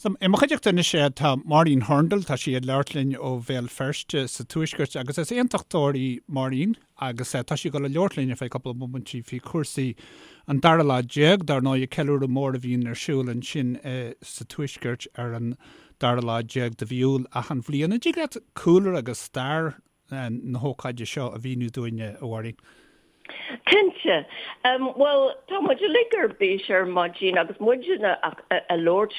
So, i mo chuideachta anois tá Máirín Hurndall, tá sí ag labhairt linn ó Bhéal Feirste sa Tuaisceart agus is aontachtóir í Máirín agus tá sí ag dul a labhairt linn ar feadh cúpla bomaintí faoi chúrsaí an dara lá déag, dar ndóigh, ceiliúradh mór a bhíonn ar siúl ansin sa Tuaisceart ar an dara lá déag de mhí Iúil achan bhliain. An dtig leat cúlra agus stair na hócáide seo a mhíniú dúinn, a Mháirín? Cinnte. Bhuel, tá muid uilig ar bís ar maidin agus muid ag labhairt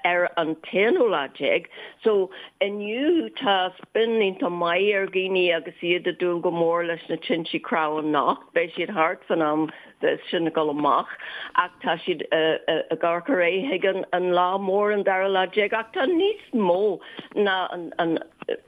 ar an t-aonú lá déag. So, inniu tá spion iontach maith ar dhaoine agus iad ag dúil go mór leis na tintí crann anocht. Beidh siad thart fan am sin ag dul amach ach tá siad ag amharc ar aghaidh chuig an lá mór an dara lá déag ach tá níos mó ná an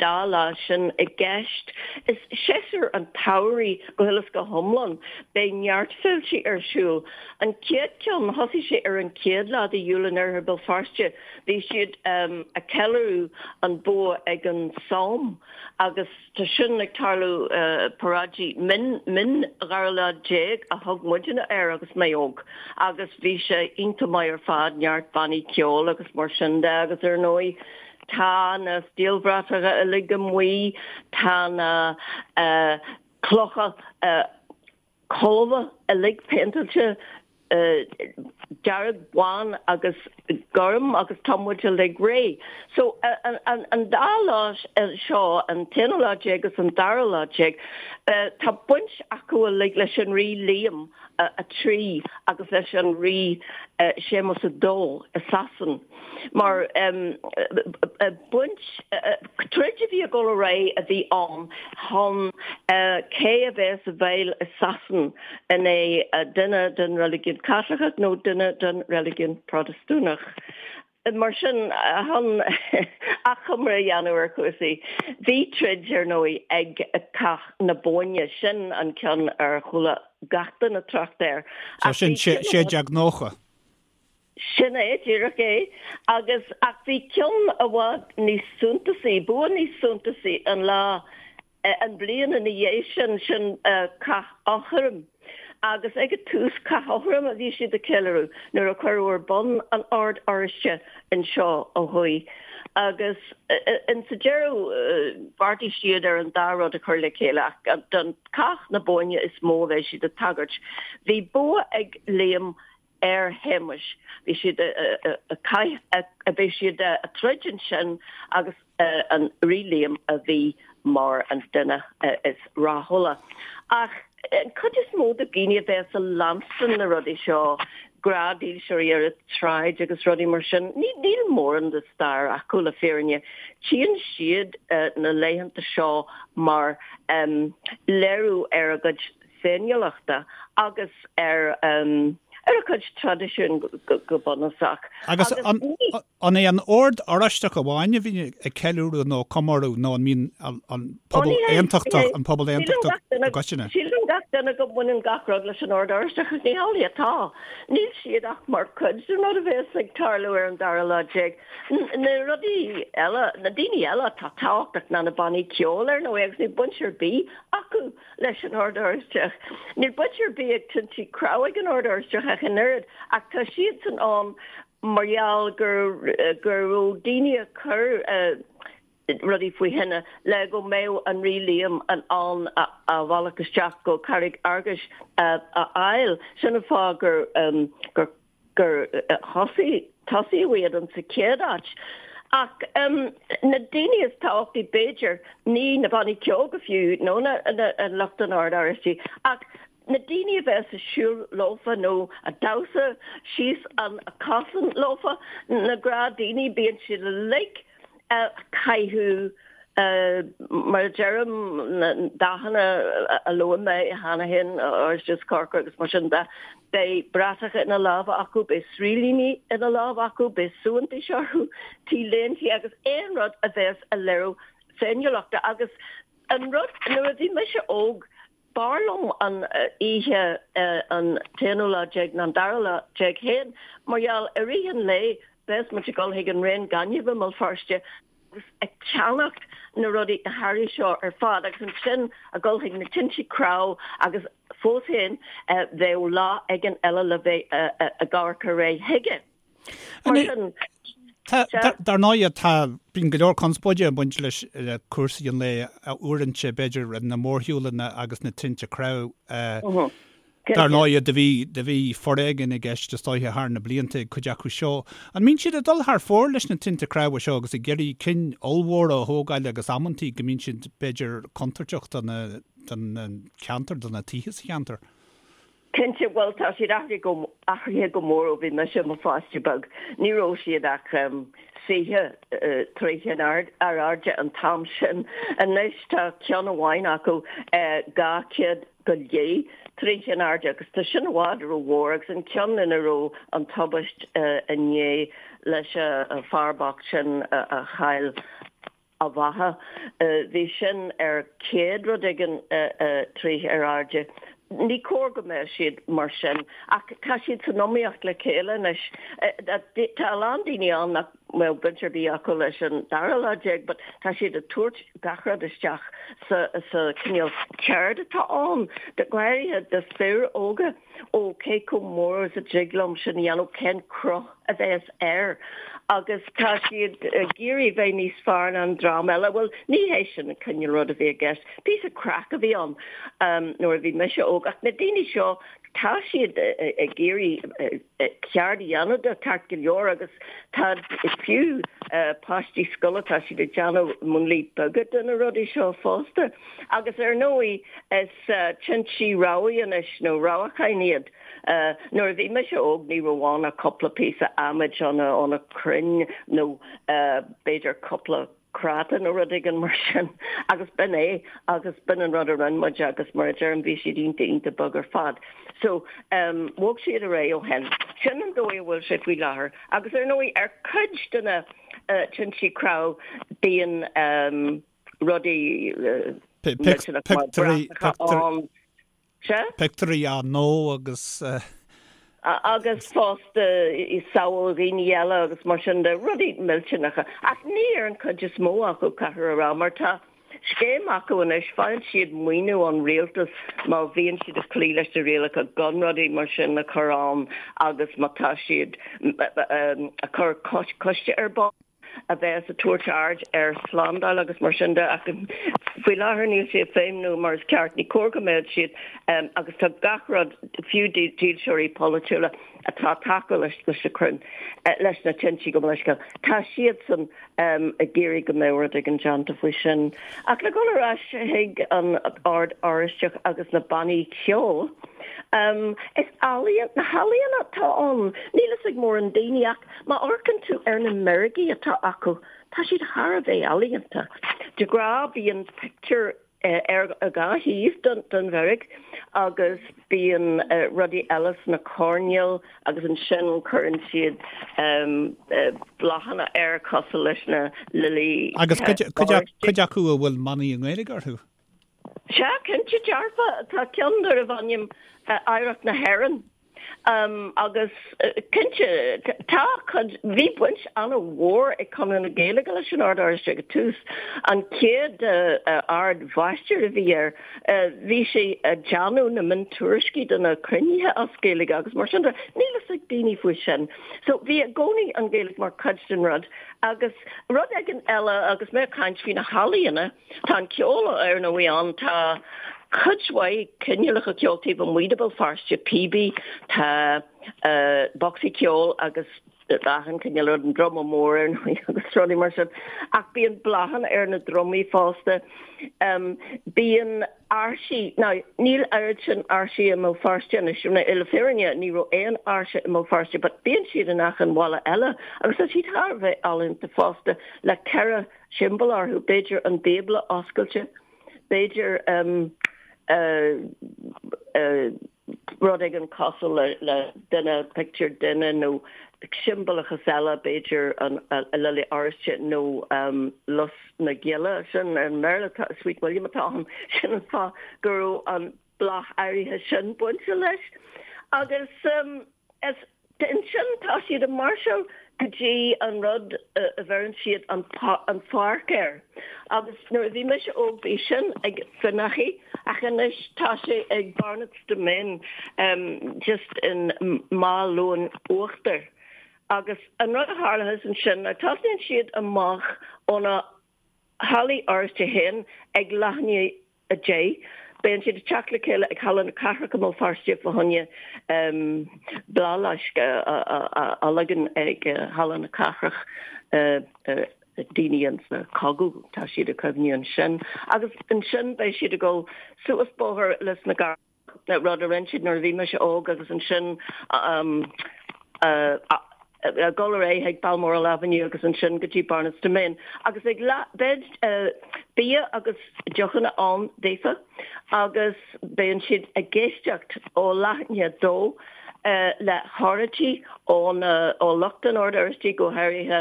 dá lá sin i gceist. Is séasúr an tsamhraidh go huile is go hiomlán. Beidh neart féiltí ar siúl. An chéad ceann, thosaigh sé ar an chéad lá de Iúil in oirthear Béal Feirste. Bhí siad ag ceiliúradh an bua ag an Somme agus tá sin ag tarlú, paráidí min, min dhara lá déag a thug muidne air agus mé óg agus bhí sé iontach maith ar fad, neart bannaí ceoil agus mar sin de agus ar ndóigh tá na stiallbhratacha uilig amuigh, tá na clocha colbha uilig péinteáilte dearg, bán agus gorm agus tá muid uilig réidh. So an dá lá seo, an t-aonú lá déag agus an dara lá déag, tá baint acu uilig leis an Rí Liam 3 agus leis an Rí Séamus 2 i Sasain. Mar baint, troid a bhí ag dul ar aghaidh a bhí ann chun cé a bheas i bhfeighil i Sasain, an é duine den reiligiún Caitliceach nó duine den reiligiún Protastúnach. Mar sin, chun achoimre a dhéanamh ar chúrsaí, bhí troid, ar ndóigh, ag Cath na Bóinne, sin an ceann ar chuala gach duine trácht air. So sin 1690. Sin é, díreach é. Agus, ach bhí ceann i bhfad níos suntasaí, bua níos suntasaí an lá, an bhliain ina dhiaidh sin, sin Cath Eochraim. Agus ag an tús, Cath Eochraim a bhí siad ag ceiliúradh nuair a cuireadh ar bun an Ord Oráiste anseo ó thuaidh. Agus in sa deireadh, bheartaigh siad ar an dá rud a chur le chéile ach don Cath na Bóinne is mó a bheidh siad ag tagairt. Bhí bua ag Liam ar Shéamus. Bhí siad a bhí siad a troid ansin agus an Rí Liam a bhí mar an duine is rathúla. Ach an cuid is mó de dhaoine a bheas a leanstan na rudaí seo, gnáthdhílseoirí ar an tsráid agus rudaí mar sin, níl mórán de stair acu le fírinne. Tchíonn siad na laethanta seo mar léiriú ar a gcuid féiniúlachta agus ar ar a cuid traidisiún go bunúsach. Agus an é an Ord Oráisteach amháin a bhíonn ag ceiliúradh nó comóradh nó an mbíonn an pobal aontachtach, an pobal aontachtach i gcoitinne? Síleann gach duine go mbaineann gach rud leis an Ord Oráisteach ach ní hamhlaidh atá. Níl siad ach mar chuid den rud a bheas ag tarlú ar an dara lá déag. Na rudaí eile, na daoine eile atá tábhachtach ná na bannaí ceoil ar ndóigh agus níl baint ar bith acu leis an Ord Oráisteach. Níl baint ar bith ag tintí crann ag an Ord Oráisteach ach an oiread, ach tá siadsan ann mar gheall go go raibh daoine ag cur rudaí faoi thine le go mbeadh an Rí Liam in ann a bhealach isteach go Carraig Fhearghais a fháil. Sin an fáth gur gur gur thosaigh, tosaíodh iad in sa chéad áit. Ach na daoine is tábhachtaí b'fhéidir, ní na bannaí ceoil go fiú, nó na lucht an Oird Oráistigh, ach na daoine a bheas ag siúl leofa nó ag damhsa síos an cosán leofa, na gnáthdhaoine, bíonn siad uilig ag caitheamh Mar a deirim, na dathanna a luaigh mé cheana féin, oráiste is corcra agus mar sin de, beidh bratacha ina lámha acu, beidh sraoillíní ina lámha acu, beidh suaitheantais orthu, T-léintí agus aon rud a bheas ag léiriú féiniúlachta. Agus an rud, nuair a bhí mise óg, B'fhearr liom an oíche an t-aonú lá déag ná an dara lá déag féin mar gheall i rith an lae bheas muid ag dul chuig an raon gainimh i mBéal Feirste agus ag ceannacht na rudaí, na hearraí seo ar fad agus ansin ag dul chuig na tintí crann agus fós féin bheadh lá éigin eile le bheith ag amharc ar aghaidh chuige. Mar sin. Dar ndóigh, tá, bíonn go leor conspóide ag baint leis le cúrsaí an lae uaireanta, b'fhéidir, na mórshiúlanna agus na tinte crann. Dar ndóigh, do bhí, do bhí foréigean i gceist is dóiche thar na blianta ag cuid acu seo. An mbíonn siad ag dul thar fóir leis na tinte cnámha seo agus ag iarraidh cinn ollmhóra a thógáil agus amantaí go mbíonn siad, b'fhéidir, contúirteach do na, don cheantar, do na tithe sa cheantar? Cinnte, bhuel tá siad athraithe go, athraithe go mór ó bhí mise i mo pháiste beag. Ní raibh siad ach 20 troigh in airde an t-am sin. Anois tá ceann amháin acu 200 go leith troigh in airde agus tá sin i bhfad rómhór agus an ceann ina raibh an tubaist inné leis an fear bocht sin a chaill a bheatha. Bhí sin ar 100 rud éigin troigh ar airde. Ní cóir go mbeadh siad mar sin ach tá siad san iomaíocht le chéile anois. Tá a lán daoine ann nach mbeadh baint ar bith acu leis an dara lá déag but tá siad ag tabhairt gach rud isteach sa sa cineál ceird atá ann, go háirithe do fir óga. Ó, cé chomh mór is a dtig liom sin a dhéanamh, cén cruth a bheas air? Agus tá siad ag iarraidh bheith níos fearr ná an dream eile. Bhuel, ní hé sin an cineál rud a bhí i gceist. Píosa craic a bhí ann nuair a bhí mise óg. Ach na daoine seo, tá siad ag iarraidh ceird a dhéanamh de, ceart go leor, agus tá fiú páistí scoile, tá siad ag déanamh múnlaí beaga de na rudaí seo fosta. Agus ar ndóigh, is tinte rabhaidh anois, nó rabhacháin iad. Nuair a bhí mise óg ní raibh ann ach cúpla píosa adhmaid ó na crainn nó b'fhéidir cúpla práta nó rud éigin mar sin agus b'in é agus b'in an rud a rinne muid agus mar a deirim bhí siad iontach iontach beag ar fad. So bhog siad ar aghaidh ó shin. Sin an dóigh a bhfuil sé faoi láthair agus ar ndóigh ar cuid de na tinte crann bíonn rudaí millteanach mar bratacha ann. Sea? Pictiúirí á ndó agus. Agus fosta samhail dhaoine eile agus mar sin de, rudaí millteanacha. Ach ní ar an chuid is mó acu, caithfear a rá, mar tá scéim acu anois, faigheann siad maoiniú ón rialtas má bhíonn siad ag cloí leis na rialacha gan rudaí mar sin a chur ann agus má tá siad ag cur coiste ar bun. a bheas ag tabhairt aird ar shlándáil agus mar sin de ach faoi láthair níl sé ag feidhmiú mar is ceart. Ní cóir go mbeadh siad agus tá gach rud, fiú dílseoirí polaitiúla atá ag tacú leis na crainn, leis na tinte gabh mo leithscéal, tá siadsan ag iarraidh go mbeadh rud éigin déanta faoi sin. Ach le dhul ar ais chuig an Ord Oráisteach agus na bannaí ceoil, is ealaíon, na healaíona atá ann, níl fhios ag mórán daoine ach Má amharcann tú ar na meirgí atá acu, tá siad thar a bheith ealaíonta. De ghnáth bíonn pictiúr ar dhá thaobh den mheirg agus bíonn rudaí eile sna coirnéil agus ansin cuireann siad bláthanna air cosúil leis na lilí. Agus cuid acu a bhfuil manaí i nGaeilge orthu? Sea, cinnte dearfa. Tá ceann darbh ainm Oidhreacht na hÉireann. Agus cinnte, tá cuid, bhí baint an-mhór ag Conradh na Gaeilge leis an Ord Oráisteach ag tús. An chéad Ard-Mháistir a bhí air, bhí sé ag déanamh na miontuairiscí de na cruinnithe as Gaeilge agus mar sin de. Níl fhios ag daoine faoi sin. So bhí i gcónaí an Ghaeilge mar chuid den rud. Agus rud éigin eile, agus mé ag caint faoi na healaíona, Tá an ceol ar ndóigh ann, tá cuid mhaith cineálacha ceoil taobh amuigh de Bhéal Feirste, píobaí, tá bocsaí ceoil agus achan cineál rud, an druma mór ar ndóigh agus rudaí mar sin. Ach bíonn bláthanna ar na drumaí fosta. Bíonn áirsí, now níl oiread sin áirsí i mBéal Feirste anois, le fírinne ní raibh aon áirse i mBéal Feirste but bíonn siad in achan bhaile eile agus tá siad thar a bheith ealaíonta fosta le 4 siombail orthu, b'fhéidir an Bíobla oscailte, b'fhéidir rud éigin cosúil le duine, pictiúr duine nó siombalachas eile, b'fhéidir an Lile Oráiste nó Lus na Gile, sin i mBéarla tá Sweet William atá ann, sin an fáth go raibh an bláth áirithe sin bainte leis. Agus is ansin tá siad ag máirseáil go dtí an rud a bheireann siad an pháirc air. Agus nuair a bhí mise óg bhí sin ag Finaghy ach anois tá sé ag Barnett's Domain just in Maigh Luain Uachtair. Agus an rud a tharlaíos ansin ná tosnaíonn siad amach ó na hallaí Oráiste féin ag leath i ndiaidh 10. Bíonn siad ag teacht le chéile ag Halla na Cathrach i mBéal Feirste fá choinne bláthfhleasc a leagan ag Halla na Cathrach daoine insa chogadh, tá siad ag cuimhniú ansin. Agus ansin beidh siad ag dul suas bóthar Lios na gCarrach. rud a rinne siad nuair a bhí mise óg agus ansin ag dul ar aghaidh chuig Balmoral Avenue agus ansin go dtí Barnetts Demesne agus ag leath beidh bia agus deochanna ann daofa agus bíonn siad ag éisteacht ó leath i ndiaidh 2 le hóráidí ó ó lucht an Oird Oráistigh go háirithe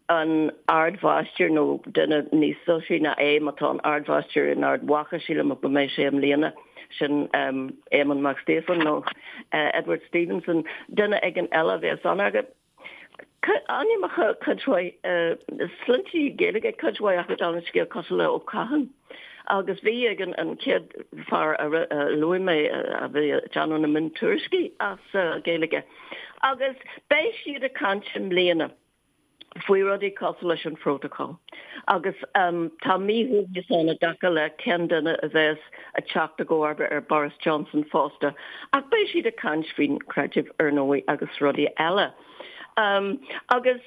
an Ardmháistir, nó duine níos soisearaí ná é, má tá an Ardmháistir in Ard Mhacha, sílim go mbeidh sé i mbliana, sin Éamonn Mac Stíofáin nó Edward Stevenson, duine éigin eile a bheas ann. Agus ainmneacha cuid mhaith, sloinnte Gaeilge cuid mhaith acu dála an scéil cosúil le Ó Catháin. Agus bhí ag an chéad fear a luaigh mé a bhí ag déanamh na miontuairiscí as Gaeilge. Agus beidh siad ag caint i mbliana. faoi rudaí cosúil leis an phrótacal agus tá míshuaimhneas ann i dtaca le cén duine a bheas ag teacht i gcomharba ar Boris Johnson fosta ach beidh siad ag caint faoin chreideamh ar ndóigh agus rudaí eile. Agus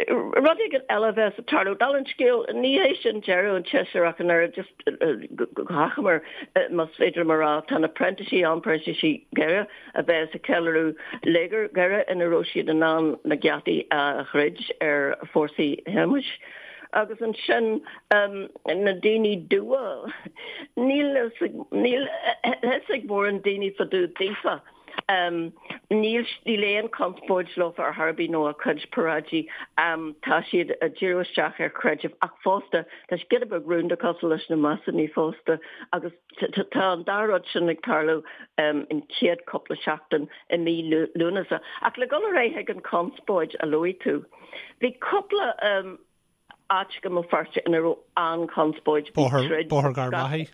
rud éigin eile a bheas ag tarlú, dála an scéil, ní hé sin deireadh an tséasúir ach an oiread, just go hachomair más féidir liom a rá, tá na printísigh ann, printísigh Dhoire, a bheas ag ceiliúradh Léigear Dhoire ina raibh siad in ann na geataí a dhruid ar fórsaí Shéamais. Agus ansin na daoine dubha, níl a fhios ag mórán daoine fá dtaobh daofa. Níl aon chonspóid leofa ar chor ar bith nó a gcuid paráidí. Tá siad ag díriú isteach ar chreideamh ach fosta tá siad giota beag rúnda cosúil leis na Masónaigh fosta agus Tá an dá rud sin ag tarlú an chéad cúpla seachtain i mí Lúnasa. Ach le dul ar aghaidh chuig an chonspóid a luaigh tú, bhí cúpla áit i mBéal Feirste ina raibh an-chonspóid. Bóthar Gharbhachaidh?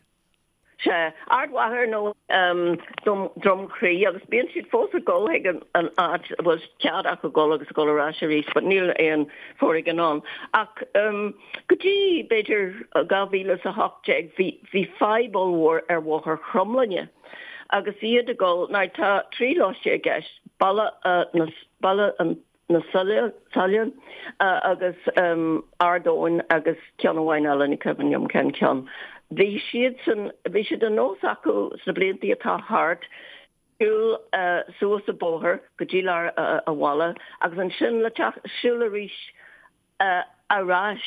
Sea, Ard Mhacha ar ndóigh, Droim Crí agus bíonn siad fós ag dul chuig an áit a bhfuil cead acu dul agus ag dul ar ais arís but níl aon foréigean ann. Ach go dtí, b'fhéidir, 2018 bhí bhí fadhb ollmhór ar Bhóthar Chromghlinne agus iad ag dul, now tá 13 lóiste i gceist, Baile na, Baile na Sailean agus Ard Eoin agus ceann amháin eile, ní cuimhin liom cén ceann. Bhí siadsan, bhí sé de nós acu sna blianta atá thart siúl suas an bóthar go dtí lár an bhaile agus ansin le teacht, siúl arís ar ais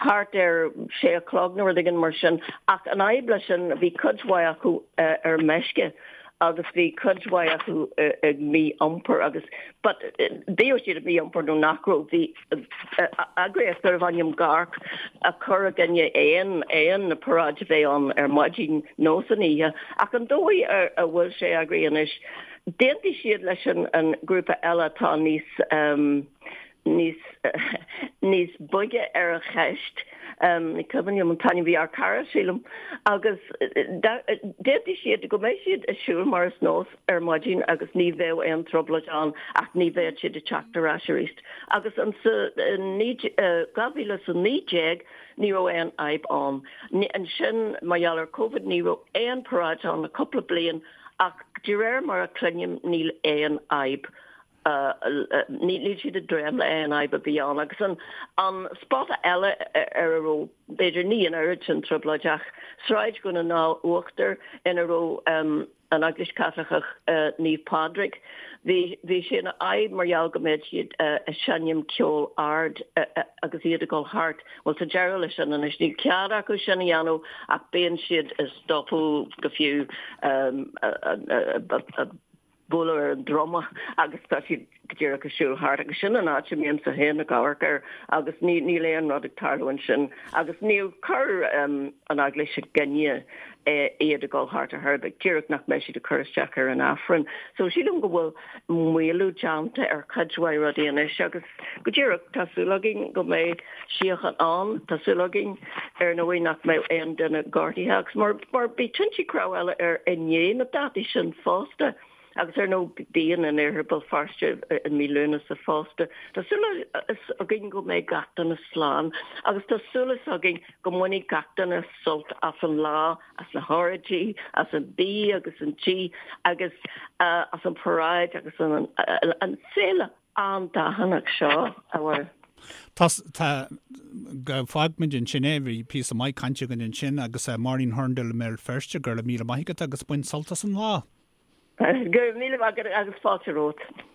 thart ar sé a chlog nó rud éigin mar sin. Ach an fhadhb leis sin, bhí cuid mhaith acu ar meisce agus bhí cuid mhaith acu ag mí-iompar agus but bíodh siad ag mí-iompar nó nach raibh, bhí eagraíocht darbh ainm GARC ag cur i gcoinne aon aon paráid a bheith ann ar maidin nó san oíche. Ach an dóigh a bhfuil sé eagraithe anois, d'aontaigh siad leis an grúpa eile atá níos níos níos boige ar an cheist. Ní cuimhin liom an t-ainm, bhí ár cara, sílim, agus d'aontaigh siad go mbeidh siad ag siúl mar is nós ar maidin agus ní bheadh aon trioblóid ann ach ní bheadh siad ag teacht ar ais arís. Agus ansa 2019 ní raibh aon fhadhb ann. Ansin mar gheall ar Covid ní raibh aon paráid ann le cúpla bliain ach de réir mar a cluinim níl aon fhadhb Níl siad ag dréim le aon fhadhb a bhí ann. Agus an spota eile ar a raibh, b'fhéidir, ní an oiread sin trioblóid ach Sráid Dhún na nGall Uachtar ina raibh an Eaglais Chaitliceach Naomh Pádraig, bhí bhí sé ina fhadhb mar gheall go mbeadh siad ag seinm ceol ard agus iad ag dul thart. Bhuel, tá deireadh leis sin anois. Níl cead acu sin a dhéanamh ach bíonn siad ag stopadh go fiú bualadh ar an druma agus tá siad go díreach ag siúl thart agus sin an áit a mbímse féin ag amharc air agus ní níl aon rud ag tarlú ansin agus níor chuir an Eaglais i gcoinne iad ag dul thart ar chor ar bith, díreach nach mbeidh siad ag cur isteach ar an Aifreann. So sílim go bhfuil maolú déanta ar chuid mhaith rudaí anois agus go díreach tá súil againn go mbeidh síocháin ann, tá súil againn ar ndóigh nach mbeidh aon duine gortaithe agus mar mar bhí tinte cnámh eile ar i ndiaidh na dátaí sin fosta. Agus ar ndóigh bíonn in Iarthar Bhéal Feirste i mí Lúnasa fosta. Tá súil againn go mbeidh gach duine slán agus tá súil againn go mbainfidh gach duine sult as an lá, as na hóráidí, as an bia agus an tí agus as an paráid agus an féile an-dathannach seo, a Mháire. Tá, tá, go bhfágfaimid ansin é, bhí píosa maith cainte againn ansin agus Máirín Hurndall i mBéal Feirste, go raibh míle maith agat agus bain sult as an lá. Go raibh míle maith agat agus fáilte romhat.